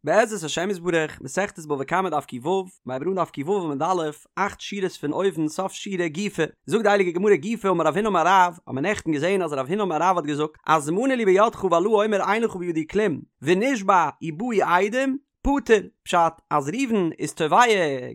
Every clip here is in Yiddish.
בעזרת השם יתברך, מסכת בבא קמא דף ק"ו, מ'הייבט אן דף ק"ו עמוד א', אכט שורות פון אויבן סוף שורה גופא, זאגט די הייליגע גמרא גופא אמר רב הונא אמר רב, האט מען נעכטן געזען אז רב הונא אמר רב האט געזאגט אז מנה לי בידך והלה אומר אין לך בידי כלום, ונשבע ובאו עדים, פטור, פשט אז ראובן איז תובע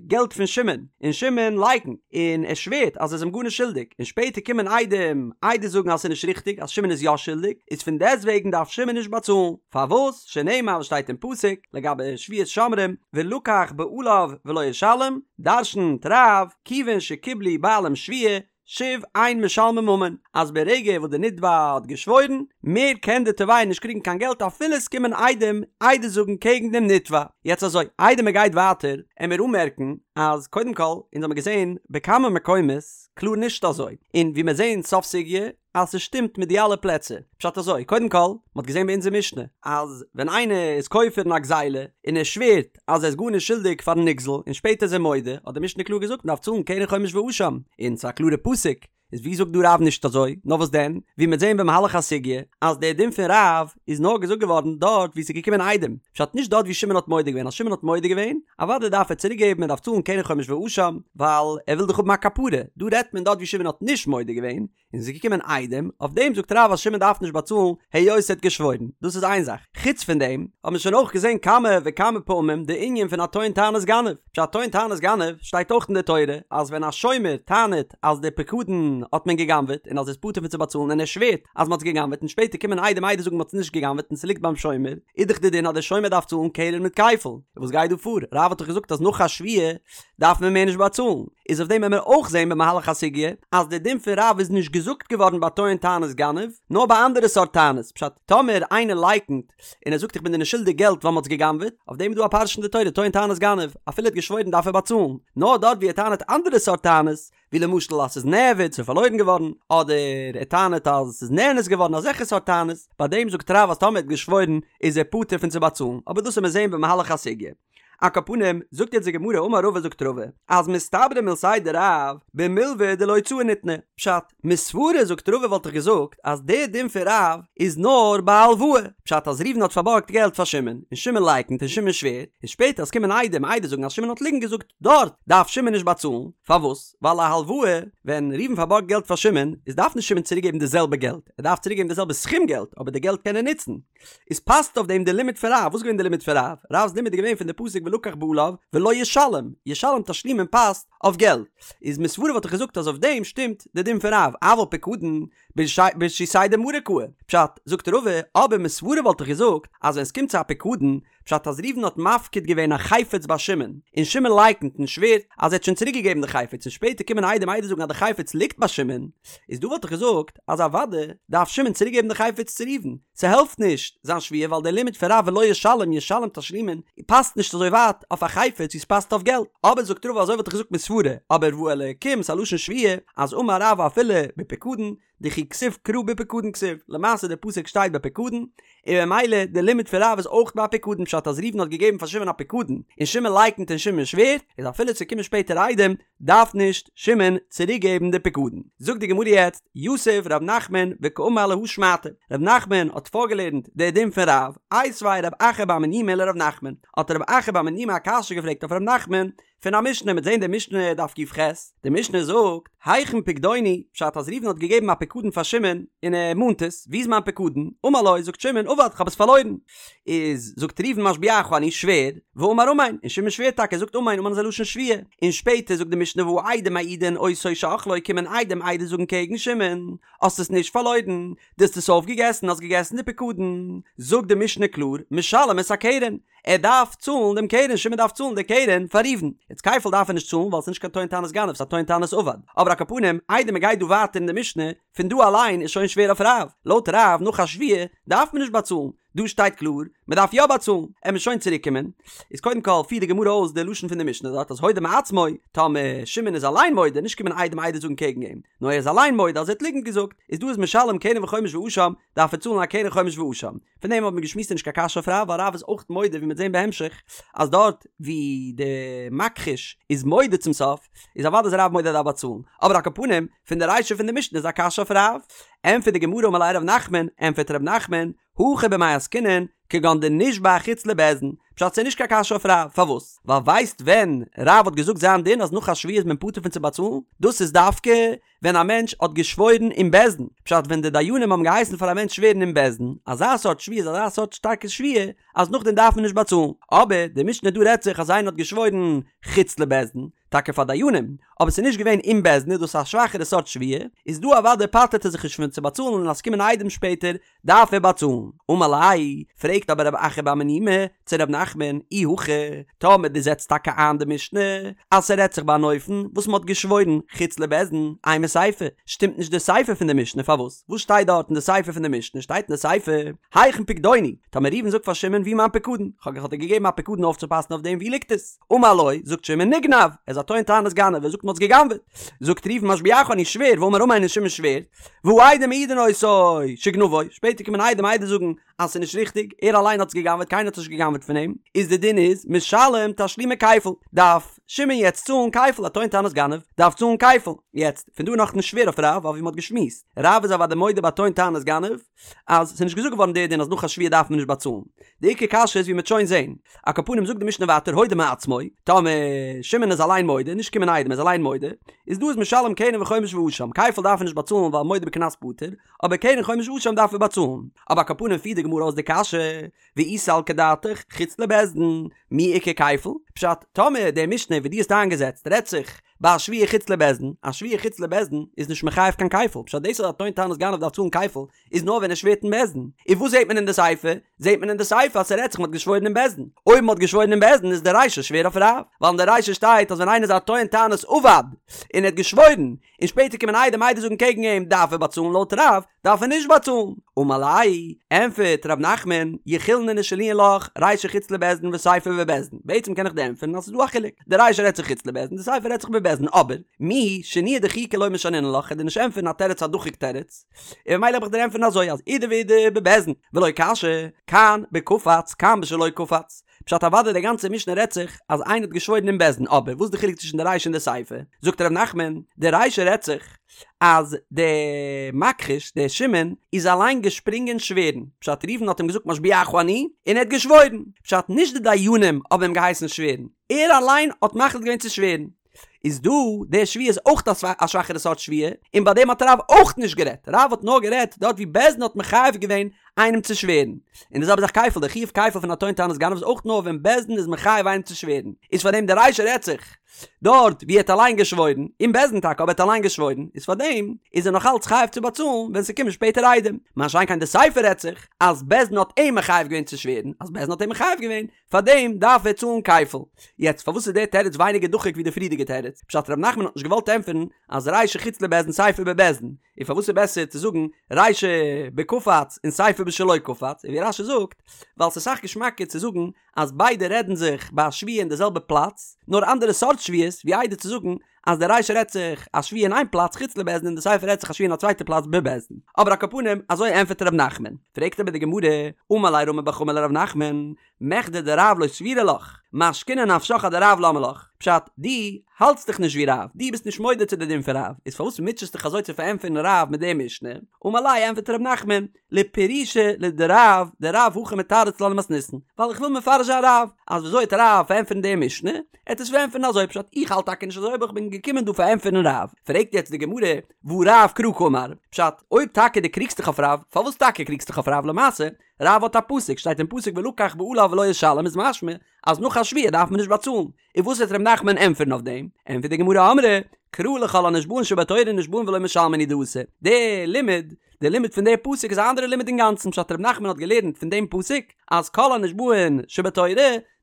געלט פון שמעון, און שמעון לייקנט, און ער שווערט אז ער איז אים גארנישט שולדיג, און שפעטער קומען עדים עדות זאגן אז ס'איז נישט ריכטיג אז שמעון איז יא שולדיג, איז פון דעסטוועגן דארף שמעון נישט באצאלן, פארוואס? שנאמר וואס שטייט אין פסוק לגבי שבועת שומרים, ולקח בעליו ולא ישלם, דרשנ'ט רב, כיוון שקיבלו בעלים שבועה, שוב אין משלמים ממון, אז ברגע וואס די נתבע האט געשוואוירן, מער קען די תובע נישט קריגן קיין געלט אפילו עס קומען עדים עדות זאגן קעגן דעם נתבע. יעצט אזוי, איידער מען גייט ווייטער, עמיר אנמערקן אז קודם כל, אונז האמיר געזען בכמה מקומות קלאר נישט אזוי, און ווי מיר זעהן סוף סוגיא אז ס'שטימט מיט די אלע פלעצער. פשט אזוי, קודם כל, מ'האט געזען ביי אונזער משנה אז ווען איינער איז כופר אין א גזילה און ער שווערט אז ער איז גארנישט שולדיג פארן נגזל און שפעטער איז ער מודה, האט די משנה קלאר געזאגט מ'דארף צאלן קרן חומש ואשם, און ס'איז א קלארע פסוק, איז ווי זאגט דא רב נישט אזוי? נאר וואס דען, ווי מ'וועט זען במהלך הסוגיא אז דער דין פון רב איז נאר געזאגט געווארן דארט ווי ס'איז געקומען עדים, פשט נישט דארט ווי שמעון האט מודה געווען, אז שמעון האט מודה געווען, אוודאי דארף ער צוריק געבן, ער דארף צאלן קרן חומש ואשם, ווייל ער וויל דאך האבן א כפרה, דא רעדט מען דארט ווי שמעון האט נישט מודה געווען, און ס'איז געקומען עדים, אויף דעם זאגט רב אז שמעון דארף נישט באצאלן היות ער האט געשוואוירן, דאס איז איין זאך, חוץ פון דעם האט מען שוין אויך געזען כמה וכמה פעמים די ענין פון א טוען טענת גנב, פשט טוען טענת גנב שטייט אויך אין די תורה אז ווען א שומר טענה'ט אז די פקדון האט מען גע'גנב'עט און אז ער איז פטור פון צו באצאלן און ער שווערט אז מ'האט עס גע'גנב'עט און שפעטער קומען עדים עדות זאגן מ'האט עס נישט גע'גנב'עט און ס'ליגט ביים שומר, איז דאך די דין אז דער שומר דארף צאלן קרן מיט כפל, וואס גייט דא פאר? רב האט דאך געזאגט אז נאך א שבועה דארף מען מער נישט באצאלן, איז אויף דעם וועלן מיר אויך זעהן במהלך הסוגיא אז די דין פון רב איז נישט געזאגט געווארן ביי טוען טענת גנב, נאר ביי אנדערע סארט טענות, פשט, טאמער איינער לייקנט און ער זאגט איך בין דיר נישט שולדיג געלט ווייל מ'האט עס גע'גנב'עט, אויף דעם איז דא א פרשה אין די תורה טוען טענת גנב, אפילו ער האט געשוואוירן דארף ער באצאלן, נאר דארט ווי ער טענה'ט אנדערע סארט טענות, ווי למשל אז ס'איז נאבד, ס'איז פארלוירן געווארן, אדער ער טענה'ט אז ס'איז נאנס געווארן, אזעלכע סארט טענות, ביי דעם זאגט רב אז טאמער ער האט געשוואוירן איז ער פטור פון צו באצאלן, אבער דאס וועל מיר זעהן במהלך הסוגיא. על כל פנים, זאגט יעצט די גמרא אמר רבא זאגט רבא, אז מסתברא מילתיה דרב, במלוה דלהוצאה ניתנה, פשט, מסברא זאגט רבא וואלט איך געזאגט אז דער דין פון רב איז נאר ביי הלוואה, פשט אז ראובן האט פארבארגט געלט פאר שמעון, און שמעון לייקנט און שמעון שווערט, און שפעטער אז קומען עדים עדות זאגן אז שמעון האט ליגנט געזאגט, דארט דארף שמעון נישט באצאלן, פארוואס? ווייל א הלוואה, ווען ראובן פארבארגט געלט פאר שמעון, איז דארף נישט שמעון צוריק געבן די זעלבע געלט, ער דארף צוריק געבן די זעלבע סכום געלט, אבער די געלט קען ער נוצן. איז פאסט אויף דעם די לימוד פון רב, וואס איז געווען די לימוד פון רב? רב'ס לימוד איז געווען פון די פסוק ולקח בעליו ולא ישלם, ישלם תשלומין פאסט אויף געלט, איז מסברא וואלט איך געזאגט אז אויף דעם שטימט די דין פון רב, אבל פקדון ברשותיה דמריה קאי, פשט, זאגט רבא, אבער מסברא וואלט איך געזאגט אז ווען עס קומט צו א פקדון, פשט אז ראובן האט מפקיד געווען א חפץ ביי שמעון, און שמעון לייקנט און שווערט אז ער האט שוין צוריק געגעבן די חפץ און שפעטער קומען עדים עדות זאגן אז די חפץ ליגט ביי שמעון, איז דא וואלט איך געזאגט אז אוודאי דארף שמעון צוריק געבן די חפץ צו ראובן, ס'העלפט נישט זיין שבועה ווייל דער לימוד פון רב ולא ישלם ישלם תשלומין פאסט נישט אזוי ווייט אויף א חפץ ווי ס'פאסט אויף געלט, אבער זאגט רבא אזוי וואלט איך געזאגט מסברא, אבער והאלקים ס'א לשון שבועה אז אמר רב אפילו בפקדון דכי כתיב קרא בפקדון כתיב, למעשה די פסוק שטייט בפקדון, און ממילא די לימוד פון רב איז אויך ביי פקדון פשט אז ראובן האט געגעבן פאר שמעון א פקדון און שמעון לייקנט און שמעון שווערט, איז אפילו ס'קומען שפעטער עדים דארף נישט שמעון צוריק געבן די פקדון. זאגט די גמרא יעצט, יתיב ר' נחמן וקאמר להא שמעתא, ר' נחמן האט פארגעלערנט די דין פון רב, איתיביה רב אחא בר מניומי לר' נחמן, האט רב אחא בר מניומי א קשיא געפרעגט אויף ר' נחמן, פון א משנה, מ'וועט זעהן די משנה דף ק"ח, די משנה זאגט, היכן פקדוני, פשט אז ראובן האט געגעבן א פקדון פאר שמעון, און ער מאנט עס, ווי איז מיין פקדון? אמר לו, זאגט שמעון, אבד, כ'האב עס פארלוירן. איז, זאגט ראובן משביעך אני, שווער, ואמר אמן, און שמעון שווערט טאקע, זאגט אמן, אמן איז א לשון שבועה. און שפעטער זאגט די משנה והעדים מעידין אותו שאכלו, קומען עדים עדות זאגן קעגן שמעון, האסט עס נישט פארלוירן, דו האסט עס אויפגעגעסן, האסט געגעסן די פקדון. זאגט די משנה קלאר, משלם את הקרן, ער דארף צאלן דעם קרן, שמעון דארף צאלן די קרן פאר ראובן. יעצט כפל דארף ער נישט צאלן ווייל עס איז נישט קיין טוען טענת גנב, ס'איז א טוען טענת אבד. אבער על כל פנים, איידער מען גייט דא ווייטער אין די משנה, פון דא אליין איז שוין שווער אויף רב. לויט רב, נאך א שבועה, דארף מען נישט באצאלן. דא שטייט קלאר, מען דארף יא באצאלן. עמיר שוין צוריק קומען. איז קודם כל פירט די גמרא אויס די לשון פון די משנה דארט אז הודה מעצמו, טאמער שמעון איז אליין מודה, נישט קומען עדים עדות זאגן קעגן אים, נאר ער איז אליין מודה אז ער האט ליגנט געזאגט, איז דא איז משלם קרן וחומש ואשם, דארף ער צאלן א קרן חומש ואשם. פון דעם האט מען געשמועסט איז נישט קיין קשיא אויף רב, ווייל רב איז אויך מודה ווי מ'וועט זען בהמשך אז דארט ווי די מכחיש איז מודה צום סוף איז אוודאי איז רב מודה אז ער דארף באצאלן, אבער על כל פנים פון די רישא פון די משנה איז א קשיא אויף רב. ענטפערט די גמרא אמר ליה ר' נחמן, ענטפערט ר' נחמן, הכא במאי עסקינן, כגון דנשבע חוץ לבית דין, פשט ס'איז נישט קיין קשיא אויף רב, פארוואס? ווייל ווייסט ווען רב האט געזאגט זיין דין אז נאך א שבועה איז מען פטור פון צו באצאלן? דאס איז דווקא ווען א מענטש האט געשוואוירן אין בית דין, פשט ווען די דיינים האבן געהייסן פאר א מענטש שווערן אין בית דין, אזא סארט שבועה איז אזא סארט שטארקע שבועה אז נאכדעם דארף מען נישט באצאלן, אבער די משנה דא רעדט זיך אז איינער האט געשוואוירן חוץ לבית דין, טאקע פאר דיינים, אבער ס'איז נישט געווען אין בית דין איז דאס א שוואכערע סארט שבועה, איז דא אוודאי פטר'ט ער זיך נישט פון צו באצאלן און אז ס'קומען עדים שפעטער דארף ער באצאלן. אמר ליה, פרעגט אבער רב אחא בר מניומי צו ר' נחמן, אי הכי, טאמער דו זעצט טאקע איין די משנה אז ס'רעדט זיך ביי אן אופן וואס מ'האט געשוואוירן חוץ לבית דין, אימא סיפא, שטימט נישט די סיפא פון די משנה, פארוואס? וואס שטייט דארט אין די סיפא פון די משנה? שטייט אין די סיפא, היכן פקדוני? טאמער ראובן זאגט פאר שמעון וואו מיין פקדון? כ'האב דיר געגעבן א פקדון אויפצופאסן אויף דעם, וואו ליגט עס? אמר לו, זאגט שמעון נגנב, ער איז א טוען טענת גנב, ער זאגט מ'האט עס גע'גנב'עט. זאגט ראובן משביעך אני שווער, ואמר אמן און שמעון שווערט, והעדים מעידין אותו שגנבו, שפעטער קומען עדים עדות זאגן אז ס'איז נישט ריכטיג, ער אליין האט עס גע'גנב'עט קיינער האט עס נישט גע'גנב'עט פון אים, איז די דין איז משלם תשלומי כפל, דארף שמעון יעצט צאלן כפל, א טוען טענת גנב דארף צאלן כפל. יעצט, פון דא איז נאכנישט שווער אויף רב, ווייל ווי מ'האט געשמועסט, רב איז אוודאי מודה ביי טוען טענת גנב, אז ס'איז נישט געזאגט געווארן דער דין אז נאך א שבועה דארף מען נישט באצאלן. די עיקר קשיא איז ווי מ'וועט שוין זעהן. על כל פנים זאגט די משנה ווייטער הודה מעצמו, טאמער שמעון איז אליין מודה, נישט קומען עדים ער איז אליין מודה, איז דא איז משלם קרן וחומש ואשם, כפל דארף ער נישט באצאלן ווייל מודה בקנס פטור, אבער קרן חומש ואשם דארף ער באצאלן. אבער על כל פנים פירט די גמרא אויס די קשיא, ואי סלקא דעתך חוץ לבית דין, מי איכא כפל? פשט, טאמער די משנה ווי דו האסט איינגעזעצט רעדט זיך ביי א שבועה חוץ לבית דין, א שבועה חוץ לבית דין איז נישט מחייב קיין כפל, פשט דאס אז א טוען טענת גנב דארף צאלן כפל איז נאר ווען ער שווערט אין בית דין, און וואס זעט מען אין די סיפא? זעט מען אין די סיפא אז ס'רעדט זיך מ'האט געשוואוירן אין בית דין, אויב מ'האט געשוואוירן אין בית דין איז די רישא שווער אויף רב, ווייל אין די רישא שטייט אז ווען איינער איז א טוען טענת אבד און ער האט געשוואוירן, און שפעטער קומען עדים עדות זאגן קעגן אים דארף ער באצאלן לויט רב דארף ער נישט באצאלן, אמר ליה, ענפערט ר' נחמן, יכילנא לשנויי לך, רישא חוץ לבית דין וסיפא בבית דין, בעצם קען איך דיר ענטפערן אז ס'איז דא א חילוק, די רישא רעדט זיך חוץ לבית דין, די סיפא רעדט זיך בבית דין, אבער, מיהו שינויא דחיקא לא משנינא לך, כ'על דיר נישט ענטפערן א תירוץ א דחוק תירוץ, און ממילא האב איך דיר ענטפערן אזוי אז אידי ואידי בבית דין, ולא קשיא, כאן בקפץ כאן בשלא קפץ, פשט אוודאי די גאנצע משנה רעדט זיך אז איינער האט געשוואוירן אין בית דין אבער וואס איז די חילוק צווישן די רישא און די סיפא? זאגט ר' נחמן די רישא רעדט זיך אז די מכחיש דער שמעון איז אליין געשפרינגען שווערן פשט ראובן האט אים געזאגט משביעך אני און ער האט געשוואוירן פשט נישט די דיינים האבן אים געהייסן שווערן ער אליין האט מחליט געווען צו שווערן איז דא די שבועה איז אויך א שוואכערע סארט שבועה, און ביי דעם האט רב אויך נישט גערעדט, רב האט נאר גערעדט דארט ווי בית דין האט מחייב געווען איינעם צו שווערן, און די זעלבע זאך כפל, די חיוב כפל פון א טוען טענת גנב איז אויך נאר ווען בית דין איז מחייב איינעם צו שווערן, איז פאר דעם די רישא רעדט זיך דארט ווי ער האט אליין געשוואוירן, אין בית דין טאקע אבער ער האט אליין געשוואוירן, איז פאר דעם איז ער נאך אלץ חייב צו באצאלן ווען ס'קומען שפעטער עדים, מה שאין כן די סיפא רעדט זיך אז בית דין האט אים מחייב געווען צו שווערן, אז בית דין האט אים מחייב געווען, פאר דעם דארף ער צאלן כפל. יעצט פארוואס איז דער תירוץ ווייניגער דחוק ווי די פריערדיגע תירוץ? פשט ר' נחמן האט נישט געוואלט ענטפערן אז רישא חוץ לבית דין סיפא בבית דין, און פארוואס איז בעסער צו זאגן רישא בקפץ און סיפא בשלא קפץ, און ווי רש"י זאגט, ווייל ס'איז אסאך געשמאקער צו זאגן אז ביידע רעדן זיך ביי א שבועה אין די זעלבע פלאץ, נאר אנדערע סארט שבועות, ווי איידער צו זאגן אז די רישא רעדט זיך א שבועה אין איין פלאץ חוץ לבית דין און די סיפא רעדט זיך א שבועה אין א צווייטע פלאץ בבית דין. אבער על כל פנים אזוי ענפערט ר' נחמן. פרעגט אבער די גמרא, אמר ליה רמי בר חמא לר' נחמן, מכדי דרב לא סבירא לך, משכוני נפשך אדרב למה לך? פשט, דו האלטסט דיך נישט ווי רב, דו ביסט נישט מודה צו די דין פון רב, איז פארוואס מוטשעסט דיך אזוי צו פארענטפערן רב מיט די משנה? אמר ליה ענפערט ר' נחמן, לפרושי לדרב, דרב הכי מתרץ לה למתניתין, ווייל איך וויל מפרש זיין רב, אז וויאזוי וועט רב פארענטפערן די משנה, ער וועט עס פארענטפערן אזוי פשט, איך האלט טאקע נישט אזוי אבער איך בין געקומען דא פארענטפערן רב, פרעגט יעצט די גמרא, והא רב קרא קאמר, פשט, אויב טאקע דו קריגסט דיך אויף רב, פארוואס טאקע קריגסט דיך אויף רב למעשה, רב האט א פסוק, שטייט אין פסוק ולקח בעליו ולא ישלם איז משמע אז נאך א שבועה דארף מען נישט באצאלן, און וואס וועט ר' נחמן ענטפערן אויף דעם? ענטפערט די גמרא אמרי קרא לכל הנשבעין שבתורה נשבעין ולא משלמין הוא דאתא, די לימוד, די לימוד פון די פסוק איז א אנדערע לימוד אינגאנצן פשט ר' נחמן האט געלערנט פון דעם פסוק אז כל הנשבעין שבתורה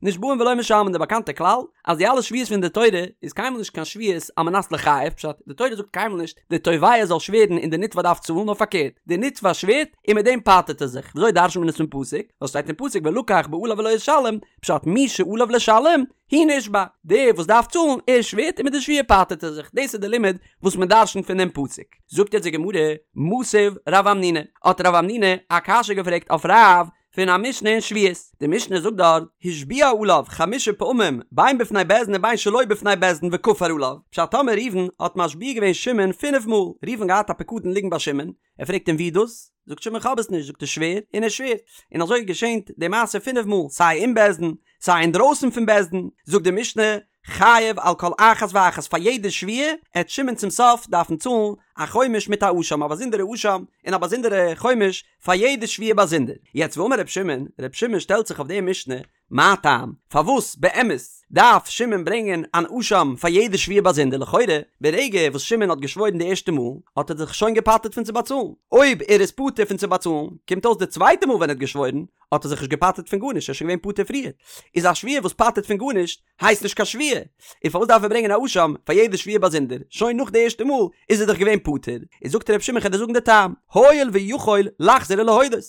נשבעין ולא משלמין די באקאנטע כלל אז די אלע שבועות פון די תורה איז קיינמאל נישט קיין שבועות על מנת לחייב פשט די תורה זאגט קיינמאל נישט די תובע זאל שווערן און די נתבע דארף צאלן נאר פארקערט די נתבע שווערט און מיט דעם פטר'ט ער זיך וויאזוי דרש'נט מען עס פון פסוק וואס שטייט אין פסוק ולקח בעליו ולא ישלם פשט מי שעליו לשלם הוא נשבע, דער וואס דארף צאלן, ער שווערט און מיט די שבועה פטר'ט ער זיך, דאס איז די לימוד וואס מען דרש'נט פון דעם פסוק. זאגט יעצט די גמרא, מתיב רב המנונא, האט רב המנונא א קשיא געפרעגט אויף רב, פון א משנה אין שבועות, די משנה זאגט דארט, השביע עליו חמשה פעמים בין בפני בית דין ובין שלא בפני בית דין וכפר עליו, פשט טאמער ראובן האט משביע געווען שמעון פינף מאל, ראובן געהאט א פיקדון ליגן ביי שמעון, ער פרעגט אים ווי דאס? זאגט שמעון כ'האב עס נישט, זאגט ער שווער, און ער שווערט, און אזוי געשענט די מעשה פינף מאל, סיי אין בית דין, סיי אינדרויסן פון בית דין, זאגט די משנה, חייב על כל אחת ואחת פאר יעדע שבועה, עט שמעון צום סוף דארפן צאלן א חומש מיט א אשם, א באזונדערע אשם און א באזונדערע חומש פאר יעדע שבועה באזונדער. יעצט ואמר ר' שמעון, ר' שמעון שטעלט זיך אויף די משנה, מה טעם? פארוואס באמת דארף שמעון ברענגען אן אשם פאר יעדע שבועה באזונדער? לכאורה, ברגע וואס שמעון האט געשוואוירן די ערשטע מאל, האט ער זיך שוין געפטר'ט פון צו באצאלן. אויב ער איז פטור פון צו באצאלן, קומט אויס די צווייטע מאל ווען ער האט געשוואוירן, האט ער זיך נישט געפטר'ט פון גארנישט, ער איז שוין געווען פטור פריער. איז א שבועה וואס פטר'ט פון גארנישט, הייסט נישט קיין שבועה. און פארוואס דארף ער ברענגען א אשם פאר יעדע שבועה באזונדער? שוין נאך די ערשטע מאל איז ער דאך געווען פטור. איז זאגט ר' שמעון כ'על דיר זאגן די טעם, הואיל ויכול לחזור ולהודות.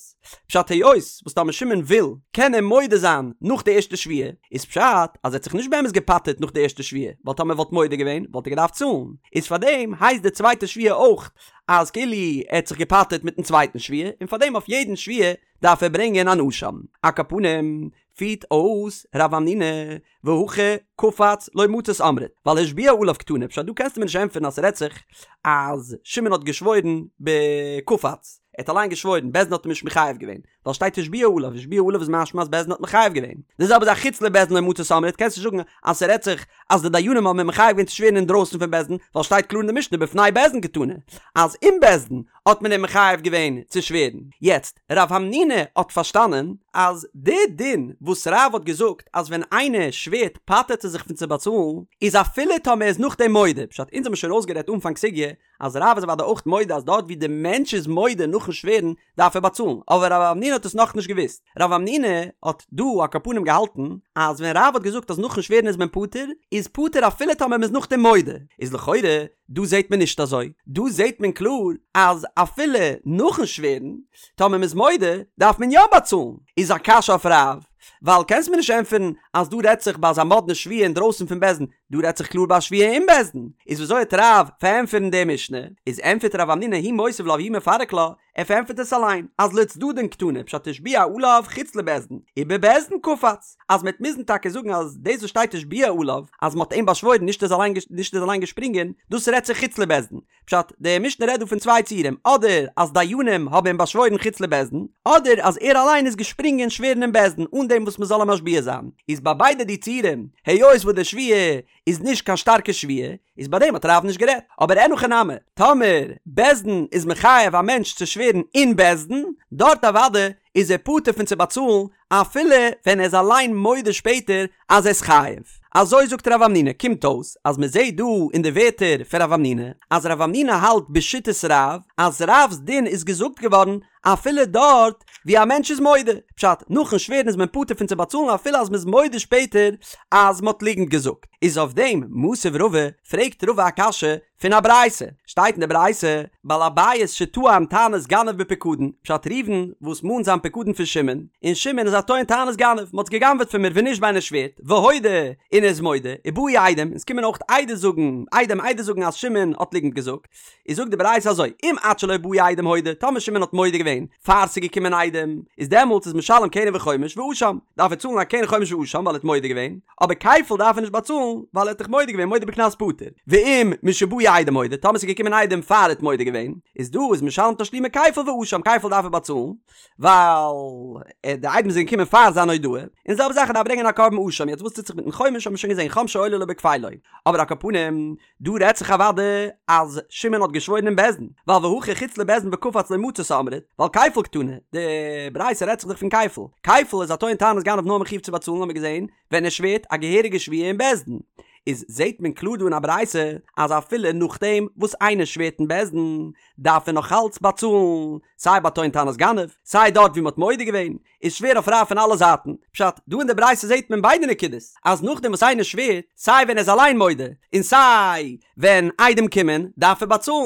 פשט היות וואס טאמער שמעון וויל קען ער מודה זיין נאך די ערשטע שבועה, איז פשט אז ער האט זיך נישט באמת געפטר'ט נאך די ערשטע שבועה, ווייל טאמער ער וואלט מודה געווען וואלט ער געדארפט צאלן, איז פארדעם הייסט די צווייטע שבועה אויך אז כאילו ער האט זיך געפטר'ט מיטן צווייטן שבועה, און פארדעם אויף יעדן שבועה דארף ער ברענגען אן אשם. על כל פנים פירט אויס רב המנונא והכא קפץ לא מצית אמרת, ווייל השביע עליו קתני, פשט דא קענסטו מיר נישט ענטפערן אז ס'רעדט זיך אז שמעון האט געשוואוירן בקפץ, ער האט אליין געשוואוירן, בית דין האט אים נישט מחייב געווען, ווייל שטייט השביע עליו, השביע עליו איז משמע אז בית דין האט מחייב געווען. די זעלבע זאך חוץ לבית דין לא מצית אמרת, קענסט נישט זאגן אז ס'רעדט זיך אז די דיינים האבן אים מחייב געווען צו שווערן אינדרויסן פון בית דין, ווייל שטייט קלאר אין די משנה בפני בית דין קתני אז אין בית דין האט מען אים מחייב געווען צו שווערן. יעצט, רב המנונא האט פארשטאנען אז די דין וואס רב האט געזאגט אז ווען איינער שווערט פטר'ט ער זיך פון צו באצאלן, איז אפילו טאמער ער איז נאכדעם מודה, פשט אונז האבן שוין אויסגערעדט אנפאנג סוגיא אז רב איז אוודאי אויך מודה אז דארט ווי די מענטש איז מודה נאכן שווערן דארף ער באצאלן, אבער רב המנונא האט עס נאכנישט געוואוסט, רב המנונא האט דא על כל פנים געהאלטן אז ווען רב האט געזאגט אז נאכן שווערן איז מען פטור, איז פטור אפילו טאמער מען איז נאכדעם מודה, איז לכאורה דא זעט מען נישט אזוי, דא זעט מען קלאר אז אפילו נאכן שווערן, טאמער מען איז מודה, דארף מען יא באצאלן. איז א קשיא אויף רב, ווייל קענסט מיר נישט ענטפערן אז דא רעדט זיך ביי אזא מאדנע שבועה אינדרויסן פון בית דין, דא רעדט זיך קלאר ביי א שבועה אין בית דין. איז וויאזוי וועט רב פארענטפערן די משנה? איז ענטפערט רב המנונא הוא מותיב לה והוא מפרק לה, ער פארענטפערט עס אליין, אז לצדדין קתני, פשט השביע עליו חוץ לבית דין, ובבית דין קפץ, אז מ'עט מוזן טאקע זאגן אז דאס וואס שטייט השביע עליו, אז מ'האט אים באשוואוירן נישט ער איז נישט ער איז אליין געשפרינגען, דאס רעדט זיך חוץ לבית דין. פשט, די משנה רעדט דא פון צוויי ציורים, אדער אז דיינים האבן אים באשוואוירן חוץ לבית דין, אדער אז ער אליין איז געשפרינגען שווערן אין בית דין אן דעם וואס מ'זאל אים משביע זיין. איז ביי ביידע די ציורים, היות וואס די שבועה איז נישט קיין שטארקע שבועה, איז ביי דעם האט רב נישט גערעדט. אבער אין הכי נמי, טאמער בית דין איז מחייב א מענטש צו שווערן אין בית דין, דארט אוודאי איז ער פטור פון צו באצאלן אפילו ווען ער איז אליין מודה שפעטער אז ער איז חייב. אזוי זאגט רב המנונא, קומט אויס אז מען זעט דא אין די ווערטער פון רב המנונא אז רב המנונא האלט בשיטת רב אז רב'ס דין איז געזאגט געווארן אפילו דארט ווי א מענטש איז מודה, פשט, נאכן שווערן איז מען פטור פון צו באצאלן אפילו אז מען איז מודה שפעטער אז מען האט ליגנט געזאגט. איז אויף דעם מתיב רבא, פרעגט רבא א קשיא פון א ברייתא, שטייט אין די ברייתא, בעל הבית שטען טענת גנב בפיקדון, פשט ראובן וואס מאנט זיין פיקדון פון שמעון, און שמעון איז א טוען טענת גנב, מען האט עס גע'גנב'עט פון מיר ונשבע און ער שווערט, והודה, און ער איז מודה, ובאו עדים, און עס קומען אויך עדות זאגן, עדים עדות זאגן אז שמעון האט ליגנט געזאגט. איז זאגט די ברייתא אזוי, אם עד שלא באו עדים הודה, טאמער שמעון האט מודה געווען פאר ס'איז געקומען עדים, איז דעמאלטס איז משלם קרן וחומש ואשם, דארף ער צאלן א קרן חומש ואשם ווייל ער האט מודה געווען, אבער כפל דארף ער נישט באצאלן ווייל ער האט דאך מודה געווען מודה בקנס פטור, ואם משבאו עדים הודה, טאמער ס'איז געקומען עדים פאר ער האט מודה געווען, איז דא איז משלם תשלומי כפל ואשם, כפל דארף ער באצאלן, ווייל די עדים זענען געקומען פאר זיין הודאה, און זעלבע זאך ער דארף ברענגען א קרבן אשם, יעצט וואס טוט זיך מיטן חומש האט מען שוין געזען חומשו עולה לו בכפילו, אבער על כל פנים, דא רעדט זיך אוודאי אז שמעון האט געשוואוירן אין בית דין, ווייל והכא חוץ לבית דין וקפץ לא מצית אמרת, ווייל כפל קתני, די ברייתא רעדט זיך דאך פון כפל, כפל איז א טוען טענת גנב נאר מחיוב צו באצאלן האמיר געזען ווען ער שווערט א געהעריגע שבועה אין בית דין, איז זעט מען קלאר דא אין א ברייתא אז אפילו נאכדעם וואס איינער שווערט אין בית דין דארף ער נאך אלץ באצאלן, סיי ביי טוען טענת גנב, סיי דארט ווי מען האט מודה געווען, איז שווער אויף רב פון אלע זייטן. פשט, דא אין די ברייתא זעט מען ביידע נקודות, אז נאכדעם וואס איינער שווערט, סיי ווען ער איז אליין מודה, און סיי ווען עדים קומען, דארף ער באצאלן.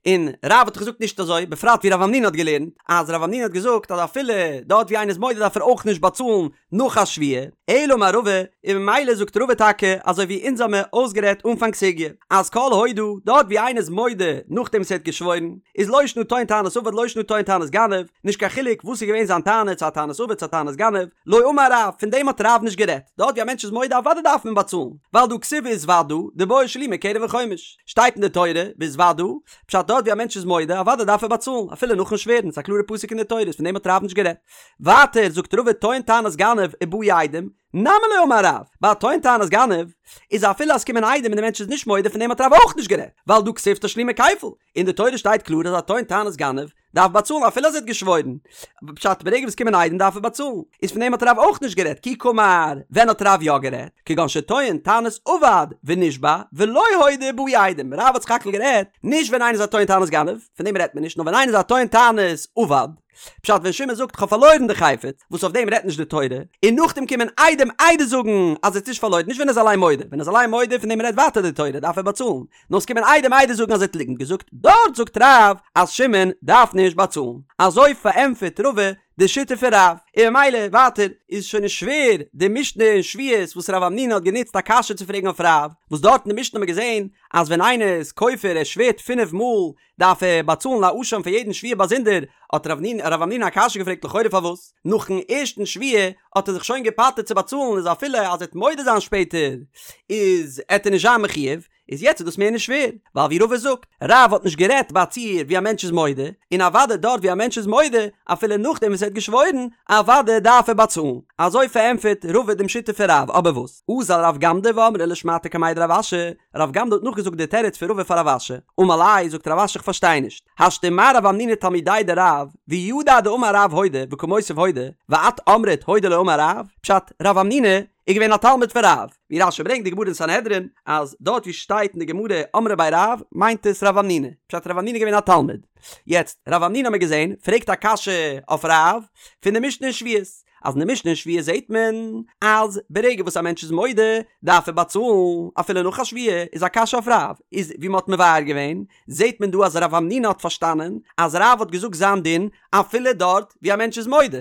און רב האט דאך געזאגט נישט אזוי, בפרט ווי רב המנונא האט געלערנט, אז רב המנונא האט געזאגט אז אפילו דארט ווי איינער איז מודה דארף ער אויך נישט באצאלן נאך א שבועה. אלא אמר רבא, און ממילא זאגט רבא טאקע אזוי ווי אונז האמיר אויסגערעדט אנפאנג סוגיא, אז כל הודאה, דארט ווי איינער איז מודה נאכדעם וואס ער האט געשוואוירן, איז לא שנא טוען טענת אבד לא שנא טוען טענת. טענת גנב, נישט קיין חילוק וואס איז געווען זיין טענה, צו א טענת אבד צו א טענת גנב, לא אמר רב, פון דעם האט רב נישט גערעדט, דארט ווי א מענטש איז מודה אוודאי דארף מען באצאלן, ווייל דהא כתיב והתודה, דבעי שלומי קרן וחומש, שטייט אין די תורה, והתודה, פשט דארט ווי א מענטש איז מודה אוודאי דארף ער באצאלן, אפילו נאכן שווערן, ס'איז א קלארע פסוק אין די תורה, פון דעם האט רב נישט גערעדט. ווייטער זאגט רבא טוען טענת גנב ובאו עדים, נמי לא אמר רב, ביי א טוען טענת גנב, איז אפילו אז ס'קומען עדים און די מענטש איז נישט מודה פון דעם האט רב אויך נישט גערעדט, ווייל דהא כתיב תשלומי כפל, אין די תורה שטייט קלאר אז א טוען טענת גנב דארף באצאלן אפילו אז ער האט געשוואוירן, פשט ברגע וואס קומען עדים דארף ער באצאלן, איז פון דעם האט רב אויך נישט גערעדט, כי קאמר, ווען האט רב יא גערעדט? כגון שטוען טענת אבד ונשבע ולא הודה ובאו עדים, רב האט סך הכל גערעדט נישט ווען איינער איז א טוען טענת גנב, פון דעם רעדט מען נישט, נאר ווען איינער איז א טוען טענת אבד, פשט ווען שמעון זאגט כ'האב פארלוירן די חפץ, וואס אויף דעם רעדט נישט די תורה, און נאכדעם קומען עדים עדות זאגן אז ער האט נישט פארלוירן, נישט ווען ער איז אליין מודה, ווען ער איז אליין מודה פון דעם רעדט ווייטער די תורה דארף ער באצאלן, נאר עס קומען עדים עדות זאגן אז ער האט ליגנט געזאגט, דארט זאגט רב אז שמעון דארף נישט באצאלן, אזוי פארענטפערט רבא די שיטה פון רב, און ממילא ווייטער איז שוין נישט שווער די משנה אין שבועות וואס רב המנונא האט גענוצט א קשיא צו פרעגן אויף רב, וואס דארט אין די משנה האט מען געזען אז ווען איינער איז כופר ער שווערט פינף מאל דארף ער באצאלן א אשם פאר יעדן שבועה באזונדער, האט רב המנונא א קשיא געפרעגט לכאורה פארוואס נאכן ערשטן שבועה האט ער זיך שוין געפטר'ט צו באצאלן איז אפילו אז ער וועט מודה זיין שפעטער איז עט ער נישט זיין מחויב, איז יעצט איז דאס מער נישט שווער, ווייל ווי רבא זאגט, רב האט נישט גערעדט ביי א ציור ווי א מענטש איז מודה, און אוודאי דארט ווי א מענטש איז מודה, אפילו נאכדעם וואס ער האט געשוואוירן, אוודאי דארף ער באצאלן. אזוי פארענטפערט רבא דעם שיטה פון רב, אבער וואס? אזל רב גמדא ואמרה לשמעתיה קמיה דרב אשי, רב גמדא האט נאכגעזאגט די תירוץ פון רבא פאר רב אשי, אמר ליה, זאגט רב אשי איך פארשטיי נישט, השתא ומה רב המנונא תלמידיה דרב, וידע דאמר רב הודה וקא מותיב הודה, ואת אמרת הודה לא אמר רב, פשט, רב המנונא איז געווען א תלמיד פון רב, ווי רש"י ברענגט די גמרא אין סנהדרין, אז דארט ווי שטייט אין די גמרא אמרי בי רב מיינט עס רב המנונא, פשט רב המנונא איז געווען א תלמיד. יעצט, רב המנונא האמיר געזען, פרעגט א קשיא אויף רב, פון די משנה אין שבועות, אז אין די משנה אין שבועות זעט מען אז ברגע וואס א מענטש איז מודה דארף ער באצאלן אפילו נאך א שבועה, איז א קשיא אויף רב, איז ווי מען האט מבאר געווען, זעט מען דא אז רב המנונא האט פארשטאנען אז רב האט געזאגט זיין דין אפילו דארט ווי א מענטש איז מודה,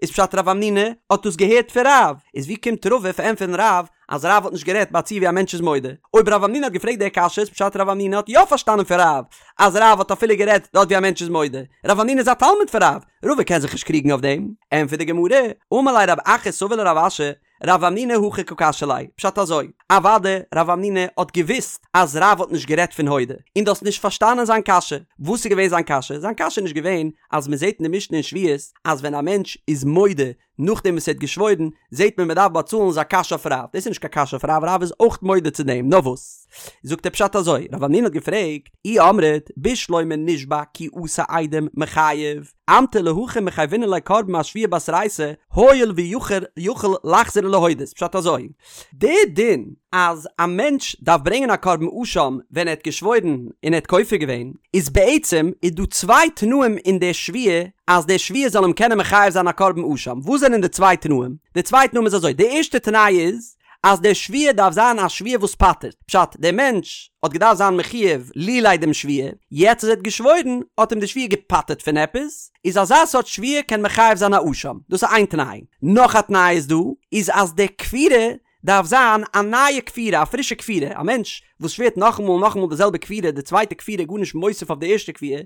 איז פשט רב המנונא האט דאס געהערט פון רב, איז ווי קומט רבא פארענטפערן רב אז רב האט נישט גערעדט ביי א ציור ווי א מענטש איז מודה? אויב רב המנונא האט געפרעגט די קשיא איז פשט רב המנונא האט יא פארשטאנען פון רב אז רב האט אפילו גערעדט דארט ווי א מענטש איז מודה, רב המנונא איז א תלמיד פון רב, רבא קען זיך נישט קריגן אויף דעם. ענטפערט די גמרא, אמר ליה רב אחא סבא לרב אשי, רב המנונא הכי קא קשיא ליה, פשט אזוי, אוודאי רב המנונא האט געוואוסט אז רב האט נישט גערעדט פון הודה, און דו האסט נישט פארשטאנען זיין קשיא, וואס איז געווען זיין קשיא? זיין קשיא איז נישט געווען אז מען זעט אין די משנה אין שבועות אז ווען א מענטש איז מודה נאכדעם וואס ער האט געשוואוירן זעט מען מען דארף באצאלן איז א קשיא אויף רב, דאס איז נישט קיין קשיא אויף רב, רב איז אויך מודה צו דעם, נאר וואס? זאגט ער פשט אזוי, רב המנונא האט געפרעגט, אי אמרת בשלמא נשבע כי אתו עדים מיחייב, אמטו להכי מחייבינן ליה קרבן אשבועה בתרייתא, הואיל ויכול יכול לחזור ולהודות, פשט אזוי, די דין אז א מענטש דארף ברענגען א קרבן אשם ווען ער האט געשוואוירן און ער האט כופר געווען, איז בעצם איז דא צוויי תנאים אין די שבועה אז די שבועה זאל אים קענען מחייב זיין א קרבן אשם, וואס זענען די צוויי תנאים? די צוויי תנאים איז אזוי, די ערשטע תנאי איז אז די שבועה דארף זיין א שבועה וואס פטר'ט, פשט, דער מענטש האט געדארפט זיין מחויב לולי דעם שבועה, יעצט אז ער האט געשוואוירן האט אים די שבועה געפטר'ט פון עפעס, איז אזא סארט שבועה קען מחייב זיין א אשם, דאס איז איין תנאי. נאך א תנאי איז דא, איז אז די כפירה דארף זיין א נייע כפירה, א פרישע כפירה, א מענטש וואס שווערט נאכאמאל און נאכאמאל די זעלבע כפירה, די צווייטע כפירה איז גארנישט מוסיף אויף די ערשטע כפירה,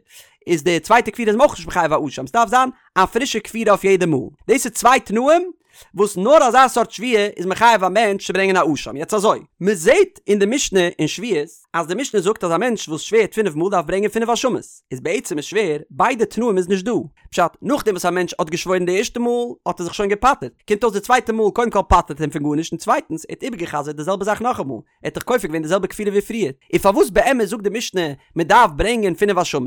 איז די צווייטע כפירה איז אים אויך נישט מחייב א אשם, ס'דארף זיין א פרישע כפירה אויף יעדע מאל. דאס איז צוויי תנאים וואס נאר אזא סארט שבועה איז מחייב א מענטש צו ברענגען א אשם. יעצט אזוי, מען זעט אין די משנה אין שבועות, אז די משנה זאגט אז א מענטש וואס שווערט פינף מאל דארף ברענגען פינף אשמות, איז בעצם איז שווער, ביידע תנאים איז נישט דא. פשט, נאכדעם וואס א מענטש האט געשוואוירן די ערשטע מאל, האט ער זיך שוין געפטר'ט, קומט אויס די צווייטע מאל קודם כל פטר'ט אים פון גארנישט און צווייטנס ער האט איבערגע'חזר'ט די זעלבע זאך נאכאמאל, ער האט דאך כופר געווען די זעלבע כפירה ווי פריער, און פארוואס באמת זאגט די משנה מען דארף ברענגען פינף אשמות?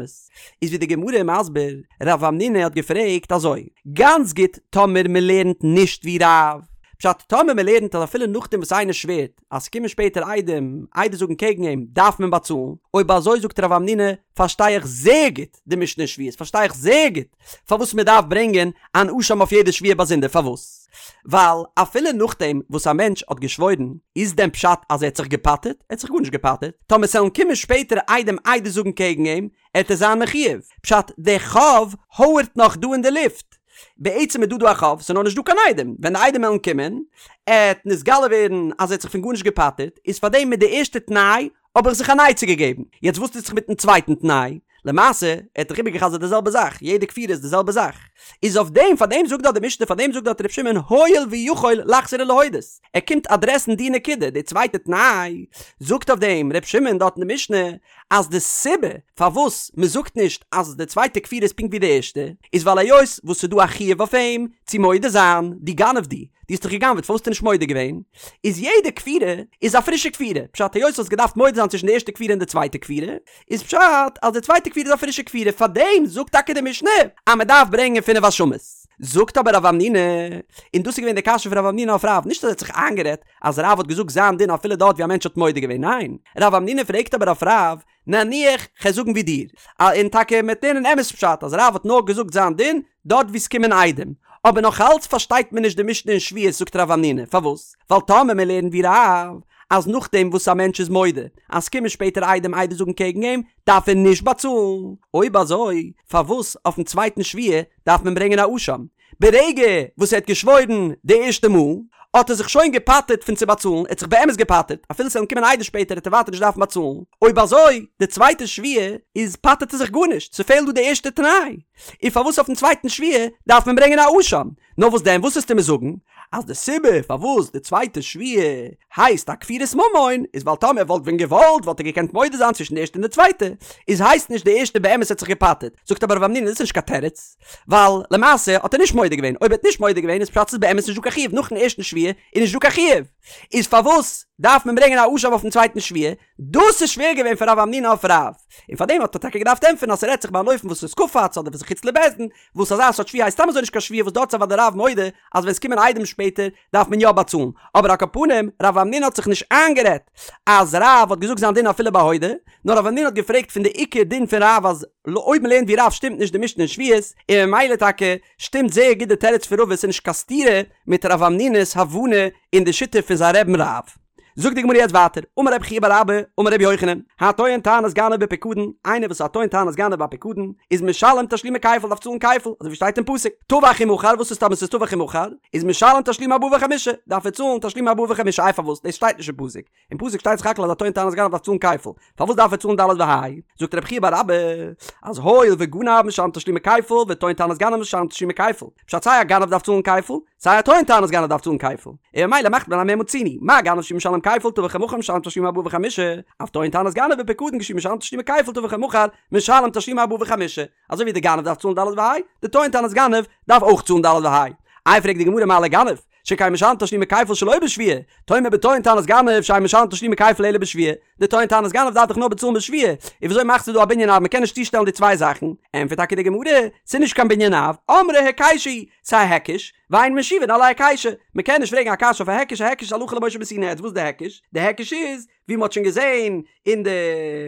איז ווי די גמרא איז מסביר, רב המנונא האט געפרעגט אזוי, גאנץ גוט טאמער מען לערנט נישט ווי רב, פשט טאמער מען לערנט אז אפילו נאכדעם וואס איינער שווערט אז ס'קומען שפעטער עדים עדות זאגן קעגן אים דארף מען באצאלן, אויב אזוי זאגט רב המנונא פארשטיי איך זייער גוט די משנה אין שבועות פארשטיי איך זייער גוט פארוואס מען דארף ברענגען אן אשם אויף יעדע שבועה באזונדער פארוואס ווייל אפילו נאכדעם וואס א מענטש האט געשוואוירן איז דען פשט אז ער האט זיך געפטר'ט? ער האט זיך גארנישט געפטר'ט טאמער ס'עלן קומען שפעטער עדים עדות זאגן קעגן אים עט ער זיין מחויב פשט די חוב הויערט נאך דא אין די לופט בעצם איז דא דא א חוב ס'איז נאר נישט דא קיין עדים ווען די עדים עלן קומען עט נתגלה ווערן אז ער האט זיך פון גארנישט געפטר'ט איז פארדעם מיט די ערשטע תנאי האב איך זיך אן עצה געגעבן. יעצט וואס טוט זיך מיטן צווייטן תנאי? למעשה, ער האט דאך איבערגע'חזר'ט די זעלבע זאך, יעדע כפירה איז די זעלבע זאך. איז אויף דעם, פאר דעם זאגט דארט די משנה, פאר דעם זאגט דארט ר' שמעון הואיל ויכול לחזור ולהודות. ער קומט אדרעסן די נקודה, די צווייטע תנאי, זאגט אויף דעם ר' שמעון דארט אין די משנה, אז די סיבה פארוואס מען זאגט נישט אז די צווייטע כפירה איז פונקט ווי די ערשטע, איז ווייל היות וואס ס'איז דא א חיוב אויף אים צו מודה זיין, דו גנב דו, דו האסט דאך גע'גנב'עט פארוואס האסטו נישט מודה געווען? איז יעדע כפירה איז א פרישע כפירה, פשט היות האסט געדארפט מודה זיין צווישן די ערשטע כפירה און די צווייטע כפירה, איז פשט אז די צווייטע כפירה איז א פרישע כפירה, פארדעם זאגט טאקע די משנה אז מען דארף ברענגען פינף אשמות. זאגט אבער רב המנונא, און דאס איז געווען די קשיא פון רב המנונא אויף רב, נישט אז ער האט זיך איינגערעדט אז רב האט געזאגט זיין דין אפילו דארט ווי א מענטש האט מודה געווען, ניין, רב המנונא פרעגט אבער אויף רב, נניח כ'על זאגן ווי דיר, און טאקע מ'עט לערנען אמת פשט אז רב האט נאר געזאגט זיין דין דארט ווי ס'קומען עדים, אבער נאך אלץ פארשטייט מען נישט די משנה אין שבועות זאגט רב המנונא, פארוואס? ווייל טאמער מען לערנט ווי רב אז נאכדעם וואס א מענטש איז מודה אז ס'קומען שפעטער עדים עדות זאגן קעגן אים דארף ער נישט באצאלן, אויב אזוי פארוואס אויפן צווייטן שבועה דארף מען ברענגען א אשם? ברגע וואס ער האט געשוואוירן די ערשטע מאל, האט ער זיך שוין געפטר'ט פון צו באצאלן, ער האט זיך באמת געפטר'ט, אפילו ס'וועלן קומען עדות שפעטער וועט ער ווייטער נישט דארפן באצאלן, אויב אזוי די צווייטע שבועה איז פטר'ט ער זיך גארנישט, ס'פעלט דא די ערשטע תנאי, און פארוואס אויפן צווייטן שבועה דארף מען ברענגען א אשם? נאר וואס דען וואס וועסטו מיר זאגן? אז די סיבה פארוואס די צווייטע שבועה הייסט א כפירת ממון איז ווייל טאמער ער וואלט ווען געוואלט וואלט ער געקענט מודה זיין צווישן די ערשטע און די צווייטע, איז הייסט נישט די ערשטע באמת האט זיך געפטר'ט, זאגט אבער רב המנונא דאס איז נישט קיין תירוץ, ווייל למעשה האט ער נישט מודה געווען, אויב ער האט נישט מודה געווען איז פשט ס'איז באמת נישט דא קיין חיוב, נאכן ערשטן שבועה איז נישט דא קיין חיוב, איז פארוואס דארף מען ברענגען א אשם אויפן צווייטן שבועה? דאס איז שווער געווען פאר רב המנונא אויף רב, און פארדעם האט ער טאקע געדארפט ענטפערן אז ס'רעדט זיך ביי אן אופן וואס איז קפץ אדער וואס איז חוץ לבית דין, וואס אזא סארט שבועה הייסט סתם אזוי נישט קיין שבועה וואס דארט איז אוודאי רב מודה אז ווען ס'קומען עדים שפעטער דארף מען יא באצאלן, אבער על כל פנים רב המנונא האט זיך נישט איינגערעדט אז רב האט געזאגט זיין דין אפילו ביי הודה, נאר רב המנונא האט געפרעגט פון די עיקר דין פון רב אז אויב מ'לערנט ווי רב שטימט נישט די משנה אין שבועות, און ממילא טאקע שטימט זייער גוט די תירוץ פון רבא ס'איז נישט קיין סתירה מיט רב המנונא'ס הבנה אין די שיטה פון זיין רבי'ן רב. זאגט די גמרא יעצט ווייטער, אמר רבי חייא בר אבא, אמר רבי יוחנן, הטוען טענת גנב בפיקדון, איינער וואס איז א טוען טענת גנב ביי פיקדון, איז משלם תשלומי כפל דארף צאלן כפל, אזוי ווי שטייט אין פסוק, טבח ומכר, וואס איז טאמער ס'איז טבח ומכר, איז משלם תשלומי ארבעה וחמישה, דארף ער צאלן תשלומי ארבעה וחמישה, איי פארוואס, דאס שטייט נישט אין פסוק, אין פסוק שטייט סך הכל אז א טוען טענת גנב דארף צאלן כפל, פארוואס דארף ער צאלן ד' וה'? זאגט רבי חייא בר אבא, אז הואיל וגנב משלם תשלומי כפל וטוען טענת גנב משלם תשלומי כפל, פשט סיי א גנב דארף צאלן כפל, סיי א טוען טענת גנב דארף צאלן כפל, און ממילא מאכט מען א מה מצינו, מה גנב שהוא משלם כפל טבח ומכר משלם תשלומי ארבעה וחמישה, אף טוען טענת גנב בפיקדון כשהוא משלם תשלומי כפל טבח ומכר משלם תשלומי ארבעה וחמישה, אזוי ווי די גנב דארף צאלן ד' וה', די טוען טענת גנב דארף אויך צאלן ד' וה'. איי פרעגט די גמרא מה לגנב, שכן משלם תשלומי כפל שלא בשבועה, תאמר בטוען טענת גנב שאין משלם תשלומי כפל אלא בשבועה, די טוען טענת גנב דארף דאך נאר באצאלן בשבועה, און וויאזוי מאכסטו דא א בנין אב מ'קען נישט צושטעלן די צוויי זאכן? ענטפערט טאקע די גמרא, ס'איז נישט קיין בנין אב, אמרי היקשא הוא, ס'איז א היקש, ואין משיבין על ההיקשא, מ'קען נישט פרעגן א קשיא אויף א היקש, א היקש איז הלכה למשה מסיני, יעצט וואס איז די היקש? די היקש איז, ווי מ'האט שוין געזען אין די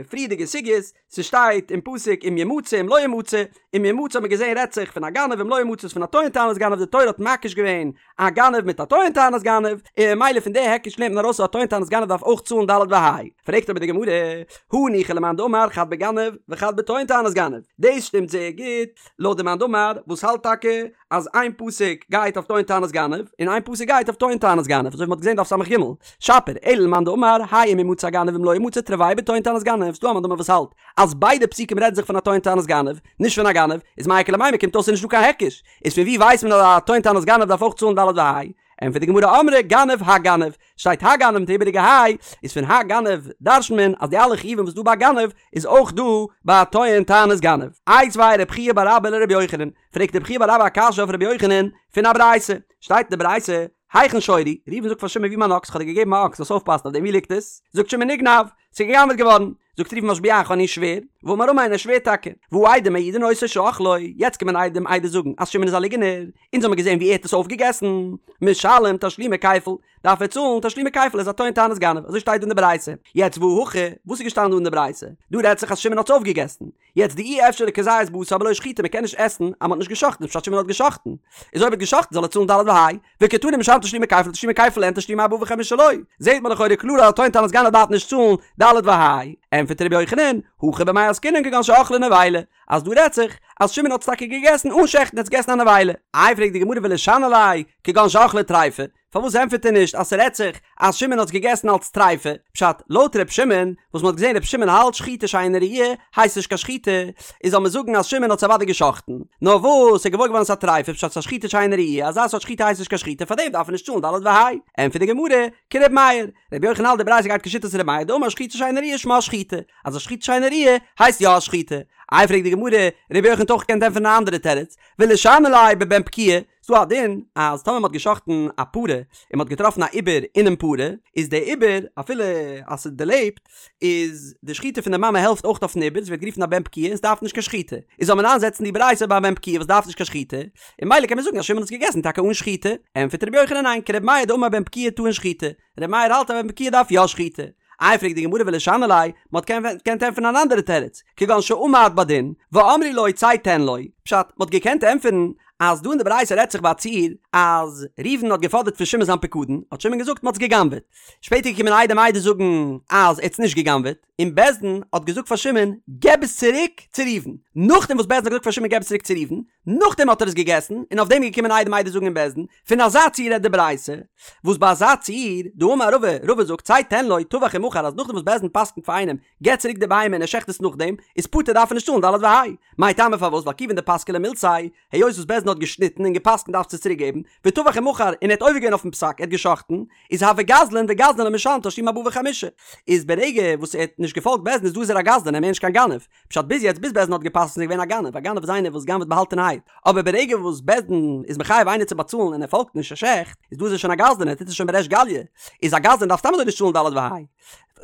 פריערדיגע סוגיות, ס'שטייט אין פסוק אם ימצא אם לא ימצא, אם ימצא האט מען געזען רעדט זיך פון א גנב אם לא ימצא איז פון א טוען טענת גנב, די תורה האט מקיש געווען א גנב מיט א טוען טענת גנב, און ממילא פון די היקש לערנט מען ארויס אז א טוען טענת גנב דארף אויך צאלן ד' וה'. פרעגט אבער די גמרא, הניחא למאן דאמר חד בגנב וחד בטוען טענת גנב, דאס שטימט זייער גוט לויט די מאן דאמר וואס האלט טאקע אז איין פסוק גייט אויף טוען טענת גנב און איין פסוק גייט אויף טוען טענת גנב אזוי ווי מ'האט געזען דף ס"ג, שפיר, אלא למאן דאמר האי אם ימצא הגנב אם לא ימצא תרוייהו בטוען טענת גנב, ס'דא א מאן דאמר וואס האלט אז ביידע פסוקים רעדן זיך פון א טוען טענת גנב, נישט פון א גנב, איז מאי איכא למימר קומט אויס ס'איז נישט דא קיין היקש, איז פון ווי ווייסט מען אז א טוען טענת גנב דארף אויך צאלן ד' וה'? ענטפערט די גמרא אמרי גנב הגנב, שטייט הגנב מיט די איבעריגע ה', איז פון הגנב דרש'נט מען אז די אלע חיובים וואס דא ביי גנב איז אויך דא ביי טוען טענת גנב. איתיביה רב חייא בר אבא לרבי יוחנן, פרעגט רב חייא בר אבא א קשיא אויף רבי יוחנן פון א ברייתא, שטייט אין די ברייתא, היכן שורי, ראובן זאגט פאר שמעון ווי מיין אקס, כ'האב דיר געגעבן א אקס זאלסט אויפפאסן אויף דעם ווי ליגט עס? זאגט שמעון נגנב, ס'איז גע'גנב'עט געווארן, זאגט ראובן משביעך אני שווער, ואמר אמן ער שווערט טאקע, והא עדים מעידין אותו שאכלו, יעצט קומען עדים עדות זאגן אז שמעון איז א ליגענער, אונז האמיר געזען ווי ער האט עס אויפגעגעסן, משלם תשלומי כפל, דארף ער צאלן תשלומי כפל ער איז א טוען טענת גנב, אזוי שטייט דא אין די ברייתא, יעצט והא הכא, וואס איז געשטאנען דא אין די ברייתא? דא רעדט זיך אז שמעון האט עס אויפגעגעסן, יעצט דאי אפשר לכזית בשר בלא שחיטה מען קען נישט עסן אז מען האט נישט גע'שחט'ן איז פשט שמעון האט גע'שחט'ן, איז אויב ער האט גע'שחט'ן זאל ער צאלן ד' וה', וקתני משלם תשלומי כפל תשלומי כפל אין תשלומי ארבעה וחמישה לא, זעהט מען לכאורה קלאר אז א טוען טענת גנב דארף נישט צאלן ד' וה', ענטפערט ר' יוחנן, הכא במאי עסקינן כגון שאכלה נבילה, אז דא רעדט זיך אז שמעון האט עס טאקע געגעסן אן שעכטן, ער האט עס געגעסן א נבילה. איי פרעגט די גמרא ולישני ליה, כגון שאכלה טריפה, פארוואס ענטפערט ער נישט אז ס'רעדט זיך אז שמעון האט עס געגעסן אלס טריפה? פשט, לויט ר' שמעון, וואס מ'האט געזען ר' שמעון האלט שחיטה שאינה ראויה הייסט נישט קיין שחיטה, איז זאל מען זאגן אז שמעון האט עס אוודאי געשחט'ן, נאר וואס ס'איז געוואר געווארן ס'איז א טריפה, פשט ס'איז א שחיטה שאינה ראויה, אזא סארט שחיטה הייסט נישט קיין שחיטה פארדעם דארף ער נישט צאלן ד' וה'. ענטפערט די גמרא, כר' מאיר, ר' יוחנן האלט די ברייתא גייט כשיטת ר' מאיר דאמר שחיטה שאינה ראויה שמה שחיטה, אז א שחיטה שאינה ראויה הייסט יא א שחיטה. איי פרעגט די גמרא, ר' יוחנן האט אויך געקענט ענטפערן א אנדערע תירוץ, ולישני ליה בבן פקועה, ס'דא א דין אז טאמער מ'האט גע'שחט'ן א פרה און מ'האט געטראפן א עובר אינעם פרה, איז דער עובר אפילו אז ס'איז דערלעבט, איז די שחיטה פון די מאמע העלפט אויך אויפן עובר, ס'ווערט גערופן א בן פקועה און ס'דארף נישט קיין שחיטה. איז זאל מען איינזעצן די ברייתא ביי א בן פקועה וואס דארף נישט קיין שחיטה, און ממילא קען מען זאגן אז שמעון האט עס געגעסן טאקע אן שחיטה. ענטפערט רבי יוחנן ניין, כרבי מאיר דאמר בן פקועה טעון שחיטה, רבי מאיר האלט אז בן פקועה דארף יא שחיטה. איי פרעגט די גמרא ולישני ליה, מ'האט געקענט ענטפערן אן אנדערע תירוץ, כגון שעמד בדין, ואמרו לו צא תן לו, פשט, מ'האט געקענט ענטפערן אז דא אין די ברייתא רעדט זיך ביי א ציור אז ראובן האט געפאדערט פון שמעון זיין פיקדון, האט שמעון געזאגט מ'האט עס גע'גנב'עט. שפעטער געקומען עדים עדות זאגן אז ער האט עס נישט גע'גנב'עט, און בית דין האט געזאגט פאר שמעון געב עס צוריק צו ראובן. נאכדעם וואס בית דין האט געזאגט פאר שמעון געב עס צוריק צו ראובן, נאכדעם האט ער עס געגעסן, און אויף דעם איז געקומען עדים עדות זאגן אין בית דין, פון אזא ציור רעדט די ברייתא, וואס ביי אזא ציור, דאמר רבא, רבא זאגט צא תן לו, טבח ומכר אז נאכדעם וואס בית דין פסק'נט פאר איינעם, געב צוריק די בהמה און ער שעכט עס נאכדעם, איז פטור דארף ער נישט צאלן ד' וה'. מאי טעמא פארוואס ווייל כיוון דפסקה ליה מילתיה, היות וואס בית דין האט געשניטן און געפסקנט דארפסטו עס צוריק געבן, וטבח ומכר און ער האט עובר געווען אויפן פסק ער האט געשאכטן, איז הוי גזלן וגזלן לא משלם תשלומי ארבעה וחמישה, איז ברגע וואס ער האט נישט געפאלגט בית דין איז דא איז ער א גזלן און מער נישט קיין גנב, פשט ביז יעצט ביז בית דין האט געפסקנט איז ער געווען א גנב, א גנב איז איינער וואס גנב'ט באהאלטענערהייט, אבער ברגע וואס בית דין איז מחייב איינער צו באצאלן און ער פאלגט נישט ער שעכט, איז דא איז ער שוין א גזלן ער טוט עס שוין בריש גליא, איז א גזלן דארף סתם אזוי נישט צאלן ד' וה'.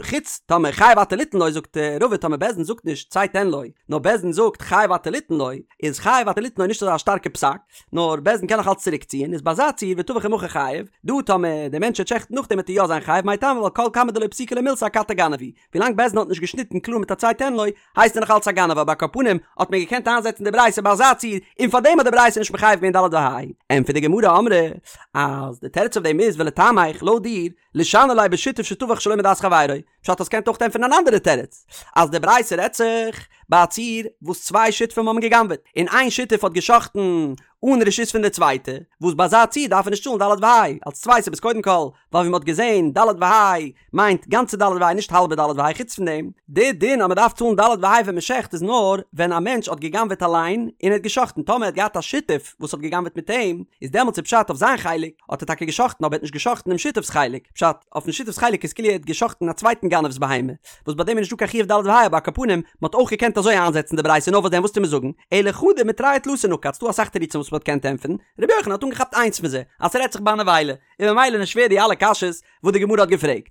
חוץ טאמער חייב אתה ליתן לו זאגט רבא טאמער בית דין זאגט נישט צא תן לו נאר בית דין זאגט חייב אתה ליתן לו איז חייב אתה ליתן לו נישט אזא שטארקע פסק נאר בית דין קען נאך אלץ צוריק ציען איז ביי אזא ציור וטבח ומכר חייב דא טאמער דער מענטש וועט שעכטן נאכדעם וועט ער יא זיין חייב מאי טעמא ווייל כל כמה דלא פסיקא ליה מילתא אכתי גנב הוא ווילאנג בית דין האט נישט געשניטן קלאר מיט א צא תן לו הייסט ער נאך אלץ א גנב אבער על כל פנים האט מען געקענט איינזעצן די ברייתא ביי אזא ציור און פארדעם האט די ברייתא נישט מחייב געווען ד' וה' ענטפערט די גמרא אמרי אז די תירוץ אויף דעם איז ולטעמיך לויט דיר לישני ליה בשותף שטבח שלא מדעת חברו, פשט האסט געקענט אויך ענטפערן אן אנדערע תירוץ, אז די ברייתא רעדט זיך ביי א ציור וואס צוויי שותפים האבן גע'גנב'עט, און איין שותף האט גע'שחט'ן אן רשות פון די צווייטע, וואס ביי אזא ציור דארף ער נישט צאלן ד' וה', אלס צוויי סיבות קודם כל, ווייל ווי מ'האט געזען ד' וה' מיינט גאנצע ד' וה' נישט האלבע ד' וה', חוץ פון דעם, די דין אז מ'דארף צאלן ד' וה' ווען מ'שחט איז נאר ווען א מענטש האט גע'גנב'עט אליין און ער האט גע'שחט'ן, טאמער ער האט געהאט א שותף וואס האט גע'גנב'עט מיט אים, איז דעמאלטס איז פשט אויף זיין חלק, האט ער טאקע גע'שחט'ן אבער ער האט נישט גע'שחט'ן דעם שותף'ס חלק, פשט, אויפן שותף'ס חלק איז כאילו ער האט גע'שחט'ן א צווייטן גנב'ס בהמה, וואס ביי דעם איז נישטא קיין חיוב ד' וה' אבער על כל פנים, מ'האט אויך געקענט אזוי איינזעצן די ברייתא נאר וואס דען וואס טו מיר זאגן, אלא חדא מתרי ותלתא נקט, ס'דא אסאך תירוצים וואס מ'האט געקענט ענטפערן, רבי יוחנן האט אנגעכאפט איינס פון זיי, אז ס'רעדט זיך ביי א נבילה, און ממילא נישט שווער די אלע קשיות וואס די גמרא האט געפרעגט.